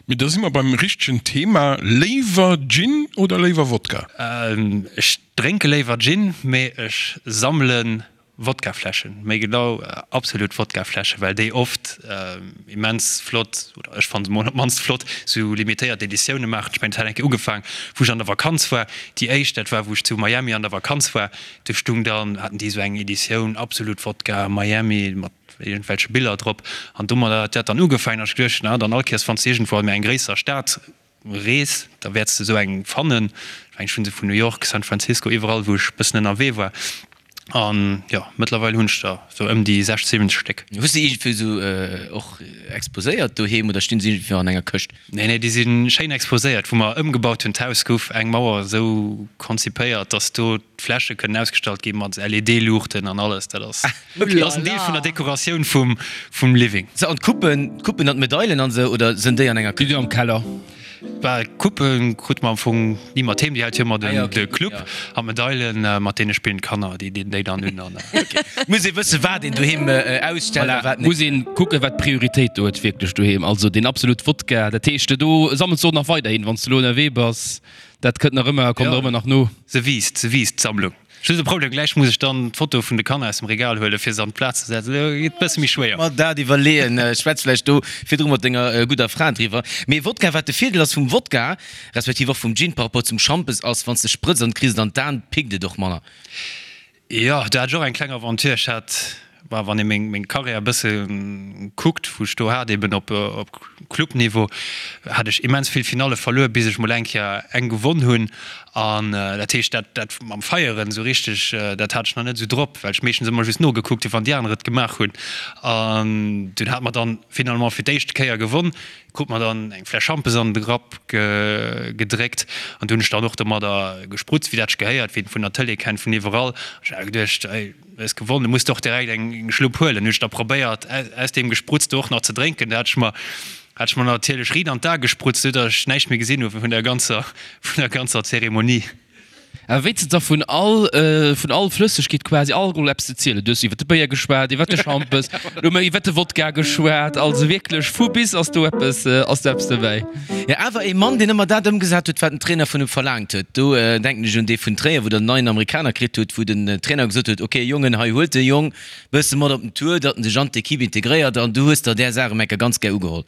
Mee da si mer beim richtegen Thema, Léiwer Gin oder léiwer Wodka? Ech drénke léiwer Gin, mee ech sammelen Wodkafläschen, méi genau Absolut Wodkafläschen, well déi oft immens flott, oder ech fannen se mol op d'mannst flott, sou limitéiert Editioune maachen. Ech mengen et hat eng Kéier ugefaang wou ech an der Vakanz war, déi éischt dat war wou ech zu Miami an der Vakanz war, do stung dann, haten déi sou eng Editioun Absolut Wodka Miami mat iergendwelche Biller drop an domadder hat dat dann ugefaangen an ech geduecht, na dann all Kéiers wann s de iergendwou an méi eng gréisser Stad Rees, da wäerts de esou eng fannen. Ech mengen, ech hunn se vun New York, San Francisco, iwwerall wou ech e bëssen ënnerwee war. An jo, mëttlerweil hunn ech der sou ëm déi 60, 70 Stéck. Hues de iergendwéi sou och exposéiert doheem oder stinn se iergendwéi an enger Këscht? Nee, nee, déi si schéin exposéiert. Wou mer ëmgebaut hunn, d'Haus gouf eng Mauer esou konzipéiert, dass do d'Fläsche kënnen ausgestallt gi mat LED-Luuchten an alles. Dat ass, dat ass en Deel vun der Dekoratioun vum, vum Living. Sou, an d'Coupen, d'Coupen an d'Medailen an esou, oder sënn déi an enger Déi Këscht? si am Keller. Bah, d'Coupe krute mer am Fong ni mat heem, déi hält jo ëmmer den de Club. An d'Medailen, mat deene spillen d'Kanner, déi dinn déi dann un an. Muss ee wëssen, wat een doheem ausstellt a wat net. Muss een kucken, wat Prioritéit do huet wierklech doheem. Also deen absolut Wodka, dat heescht, do sammels de och nach weiderhin, wann s de elo ënnerwee bass, dat kënnt nach ëmmer, kommt nach ëmmer nach no. Se wiisst, se wiisst, d'Sammlung. Just e Problem, gläich muss ech dann d'Foto vun de Kanner aus dem Regal huelen, fir se an d'Plaz ze setzen. Dat geet e bësse méi schwéier. Mer dat iwwerleeën. Schwätz vläicht do virdru mat denger gudder Fra driwwer. Mee Wodka, wat de Virdeel ass vum Wodka, respektiv och vum Gin par rapport zum Schampes, ass, wann s de sprëtz an kriss et an d'Aen, pickt et och manner. Jo, do hat ech och eng kleng Aventure. Ech hat, bah, wann ee meng, meng Karriär e bësse kuckt, wou ech do hat, eben op, op Clubniveau, hat ech immens vill Finalle verluer, bis ech mol eng Kéier eng gewonn hunn. An dat heescht, dat, dat mam Feieren esou richteg, dat hat ech nach net esou drop, well ech meeschtens ëmmer just nogekuckt hunn, wann déi aner et gemaach hunn. An dunn hate mer dann finalement fir d'éischt Kéier gewonn, krut mer dann eng Fläsch Schampes an de Grapp gedréckt an du hunn ech dann och domadder gesprutzt, wéi dat sech gehéiert, wéi een et vun der Tëlee kennt, vun iwwerall. An ech hat geduecht, ey, du hues gewonnen, du muss der och direkt eng Schlupp huelen. Hunn ech da probéiert, aus deem Gespruzte och nach ze drénken. Da hat ech mer Hat ech mer natierlech riit an d'A gesprutzt, sou datt ech näischt méi gesinn hu vun der ganzer, vun der ganzer Zeremonie. Awer wéi s de da vun all, vun all Flëssegkeet quasi Alkohol eppes ze zielen? Du hues iwwer de Béier geschwat, iwwer de Schampes, elo hu mer iwwer de Wodka geschwat. Also wierklech vu bis ass do eppes, ass do eppes dobäi. Jo, awer ee Mann, deen ëmmer dat ëmgesat huet, wat den Trainer vun em verlaangt huet. Do denken ech un dee vun Tréier, wou der en neien Amerikaner kritt hutt, wou den Trainer gesot huet, ok Jongen, hei huelt de Jong, Bësse mat op den Tour, datt en sech an d'Equipe integréiert an du hues der där Saach ëm enker ganz gär ugeholl.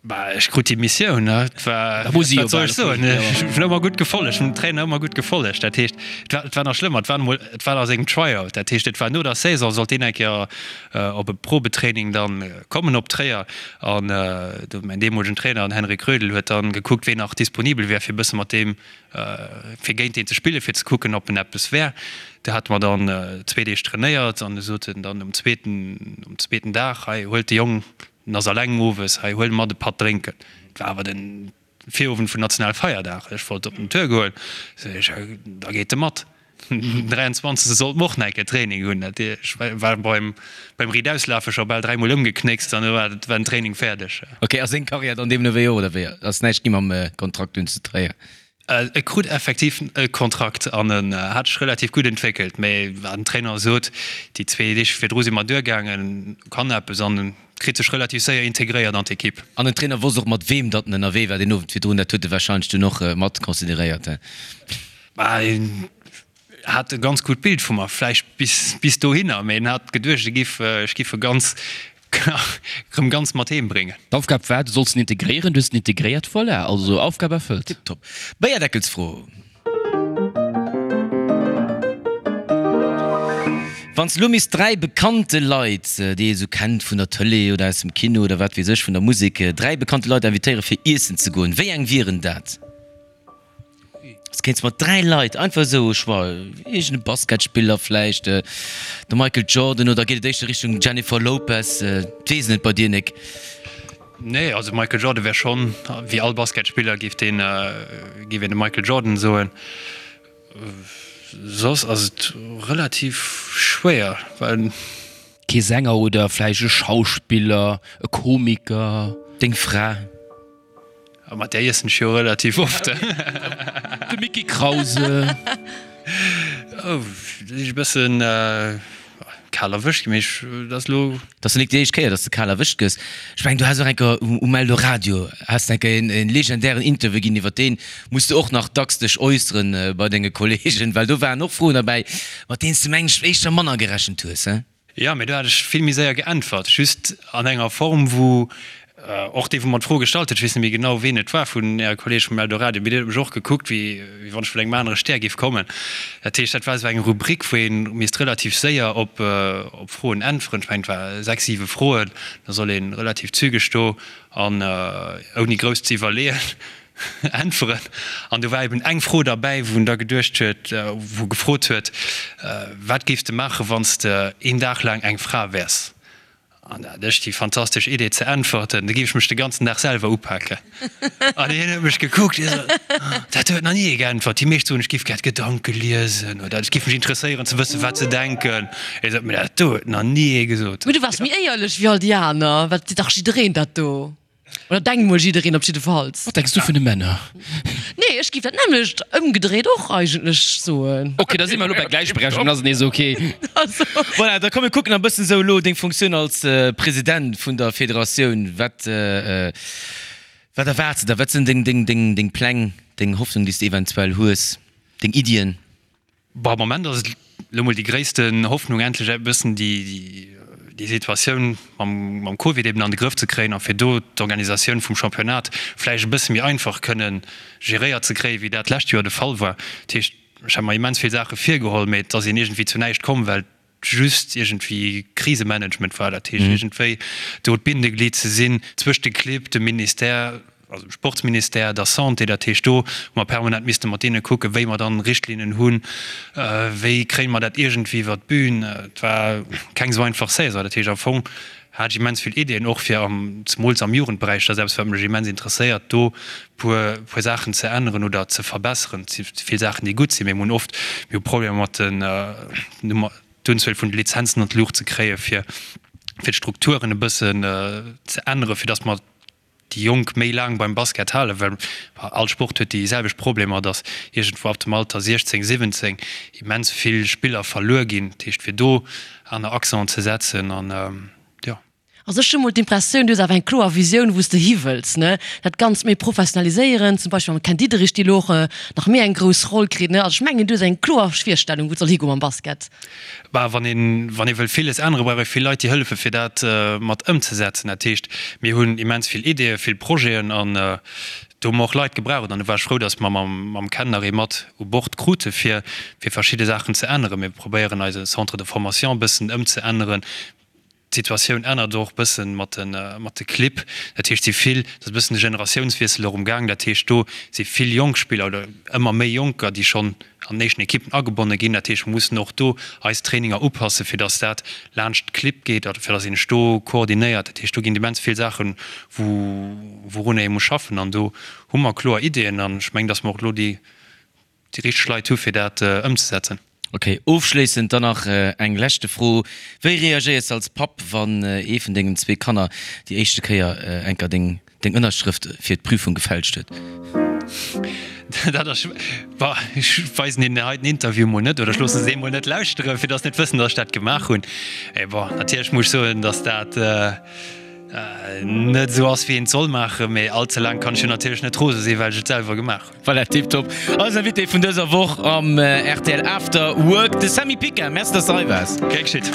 Bah, ech krut déi Missioun, ne? Et war, Da muss si jo wat soll bal ech soen, erfüllt, jo. ech hunn ëmmer gutt gefollegt, hunn dem Trainer ëmmer gutt gefollegt. Dat heescht, et war, et war nach schlëmmer, et war emol, et war a sengem Tryout, dat heescht, et war no der Saison, sollt deen eng Kéier op e Probetraining dann kommen op Tréier an do mäin deemolegen Trainer, den Henrik Rödl, huet dann gekuckt, ween nach disponibel wär, fir e bësse mat deem fir géint deen ze spillen, fir ze kucken, ob en eppes wär. Do hate mer dann zwee Deeg trainéiert an du sot en dann um zweeten, um zweeten Dag, Hei, huelt de Jong, en ass alleng owes, hei, huel mat e Patt drénken. Et war awer de Virowend vun Nationalfeierdag, ech wollt op den Tour goen, sot ech, da geet e mat. Den 23. Sollte mer och nach eng Kéier Training hunn. Dat ech war beim, beim Riitauslafe scho bal dräimol ëmgeknéckst an du war den Training fäerdeg. Ok, ass seng Karriär dann deemno wéi och, oder wéi? Ass näischt gi mam Kontrakt dunn zu Tréier? E krut effektiv e Kontrakt an en hat sech relativ gutt entwéckelt. Mee wat den Trainer sot, déi zwee Deeg virdru si mer duergaangen, kann eppes an en kritt sech relativ séier integréiert an d'Ekipp. An den Trainer wosst och mat weem datt en ënnerwee war deen Owend virdrun, dat huet e warscheinlech dunn och mat consideréiert, he? Bah, en hat e ganz gutt Bild vu mer, vläicht bis, bis dohinner, mee en hat geduecht, e giff, ech giff e ganz, erëm ganz mat heem bréngen. D'Aufgab war, du solls en integréieren, du hues en integréiert, voilà, also Aufgab erfëllt. Tiptop. Béierdeckelsfro. Wann s de elo misst 3 bekannte Leit, déi ee sou kennt vun der Tëlee oder aus dem Kino oder wat weess ech, vun der Musek, 3 bekannte Leit invitéiere fir iessen ze goen, wéi eng wieren dat? S, Kéints mat 3 Leit einfach esou au choix, iergend e Basketspiller vläicht, de Michael Jordan oder geet et éischter Richtung Jennifer Lopez? D'weess net bei dir Nic. Nee, also Michael Jordan wär schonn, wéi all Basketspiller géif deen, géif een de Michael Jordan soen. Soss ass et relativ schwéier, well. Kee Sänger oder vläicht e Schauspiller, e Komiker? Deng Fra? A mat där iessen ech jo relativ oft. De Micky Krause. Oh, da sinn ech e bëssen kal erwëscht ginn, mee ech, dat ass elo. Dat ass jo nik déi éischt Kéier, dass de kal erwëscht gëss. Ech mengen, du has och eng Kéier um Eldoradio has de eng Kéier en legendären Interview ginn, iwwer deen muss de och nach dacks dech äusseren bei denge Kollegen, well do waren och Froen derbäi, mat deenen s de, mengen ech, éischter manner gerechent hues, he? Jo, mee do hat ech vill méi séier geäntwert, just an enger Form, wou och dee, wou mer d'Fro gestallt huet, ech weess net méi genau, ween et war vun Äre Kolleege vum Eldoradio, mee deen huet mech och gekuckt, wéi wann ech vun engem anere Stär géif kommen. Dat heescht, dat war esou eng Rubrik, wou ee misst relativ séier op Froen äntweren. Ech mengen, et war sechs, siwe Froen, da soll ee relativ zügeg do an ouni grouss ze iwwerleeën. Äntweren. An do war eben eng Fro derbäi, wou en da geduecht huet, wou gefrot huet, Wat géifs de maachen, wann s de een Dag laang eng Fra wäers? An da hat ech déi fantastesch Idee ze äntwerten, Da géif ech mech de ganzen Dag selwer upaken. An hien huet mech gekuckt, hie sot, Dat huet nach ni ee geäntwert. Déi meescht soen, ech géif gär d'Gedanke liesen oder et géif mech interesséieren ze wëssen, wat se denken. Hie sot, Mee dat do huet nach ni ee gesot. Mee du waars méi éierlech wéi all déi aner, well et seet dach jiddereen dat do. Oder denkt mol jiddereen op jiddefalls. Wat denks du vun de Männer? Nee, ech giff dat nämmlecht ëmgedréit och eigentlech soen. Ok, da si mer elo bei Gläichberechtigung, dann ass et nees ok. Also. Voilà, da komm mir kucken e bëssen esou elo deng Funktioun als President vun der Federatioun. Wat, wat erwaarts de der? Wat sinn deng, deng, deng, deng Pläng, deng Hoffnung, déi s de eventuell hues, deng Iddien? Bon, am Moment ass et elo mol déi gréissten Hoffnung, endlech e bëssen déi Situatioun mam Covid eben an de Grëff ze kréien a fir do d'Organisatioun vum Championnat vläicht e bësse méi einfach kënne geréiert ze kréien, wéi dat d'lescht Joer de Fall war. Dat heescht, ech hat mer immens vill Saache virgeholl, mee et ass een iergendwéi zu näischt komm, well just iergendwéi Krisemanagement war, dat heescht iergendwéi do d'Bindeglied ze sinn zwëscht de Clibb, dem Ministère, also dem Sportsministère, der Santé, dat heescht do hu mer permanent misste mat deene kucken, wéi mer dann Richtlinnen hunn, wéi kréie mer dat iergendwéi iwwer d'Bün. Et war keng esou einfach Saison, dat heescht am Fong hat ech immens vill Ideeën och fir am, zemools am Jugendberäich, dat ass eppes wat mech immens interesséiert, do puer puer Saachen ze änneren oder ze verbesseren. Et si vill Saachen déi gutt sinn, mee mir hunn oft, mir hu Problemer mat den d'Unzuel vun de Lizenzen an d'Luucht ze kréien, fir fir d'Strukturen e bëssen ze änneren, fir datt mer déi Jonk méi laang beim Basket halen, well all Sport huet déi selwecht Problemer, datt iergendwou ab dem Alter 16, 17 immens vill Spiller verluer ginn. Dat heescht, fir do aner Accenten ze setzen an jo. Also ech hu mol d'Impressioun, du hues awer eng kloer Visioun, wou s de hiwëlls, ne? Dat Ganzt méi professionaliséieren, zum Beispill mam Ken Diederich, dee lo och nach méi eng grouss Roll kritt, ne? Also ech mengen, du hues eng kloer Virstellung, wou et soll higoe mam Basket. Bah, wann een, wann ee wëll villes änneren, brauch ee vill Leit, déi hëllefen, fir dat mat ëmzesetzen. Dat heescht, mir hunn immens vill Ideeën, vill Projeten an do hu mer och Leit gebraucht. An do war ech frou, datt mer mam, mam Ken nach ee mat u Bord krute fir, fir verschidde Saachen ze änneren. Mir probéieren eise Centre de formation e bëssen ëmzeänneren. D'Situatioun ännert och bëssen mat de mat de Clibb. Dat heescht, si vill, et ass e bëssen de Generatiounswiessel och um Gaang. Dat heescht, do si vill jonk Spiller oder ëmmer méi Jonker, déi schonn an den éischten Ekippen agebonne ginn. Dat heescht, mer mussen och do eis Traininger upassen, fir datt dat laanscht d'Clibb geet oder fir datt een sech do koordinéiert. Dat heescht, do ginn immens vill Saachen, wou wourunner ee muss schaffen. An do hu mer kloer Ideeën an ech mengen, datt mer och elo déi déi richteg Leit hu fir dat ëmzesetzen. Ok, ofschléissend dann nach eng leschte Fro, Wéi reagéiers de als Papp, wann ee vun dengen zwee Kanner déi éischte Kéier enker deng Ënnerschrëft fir d'Prüfung gefälscht huet? Dat ass, bah, ech weisen hinnen hei den Interview mol net oder ech loosse se emol net lauschteren, fir datt se net wëssen, datt ech dat gemaach hunn. Mee bon, natierlech muss ech soen, datt dat net esou ass, wéi een et soll maachen. Mee all ze laang kann ech jo natierlech net rose sinn, well ech et selwer gemaach hunn. Voilà, tiptop. Eisen Invité vun dëser Woch am rtl After Work, de Samy Picard. Merci, dass de hei waars. Gär geschitt.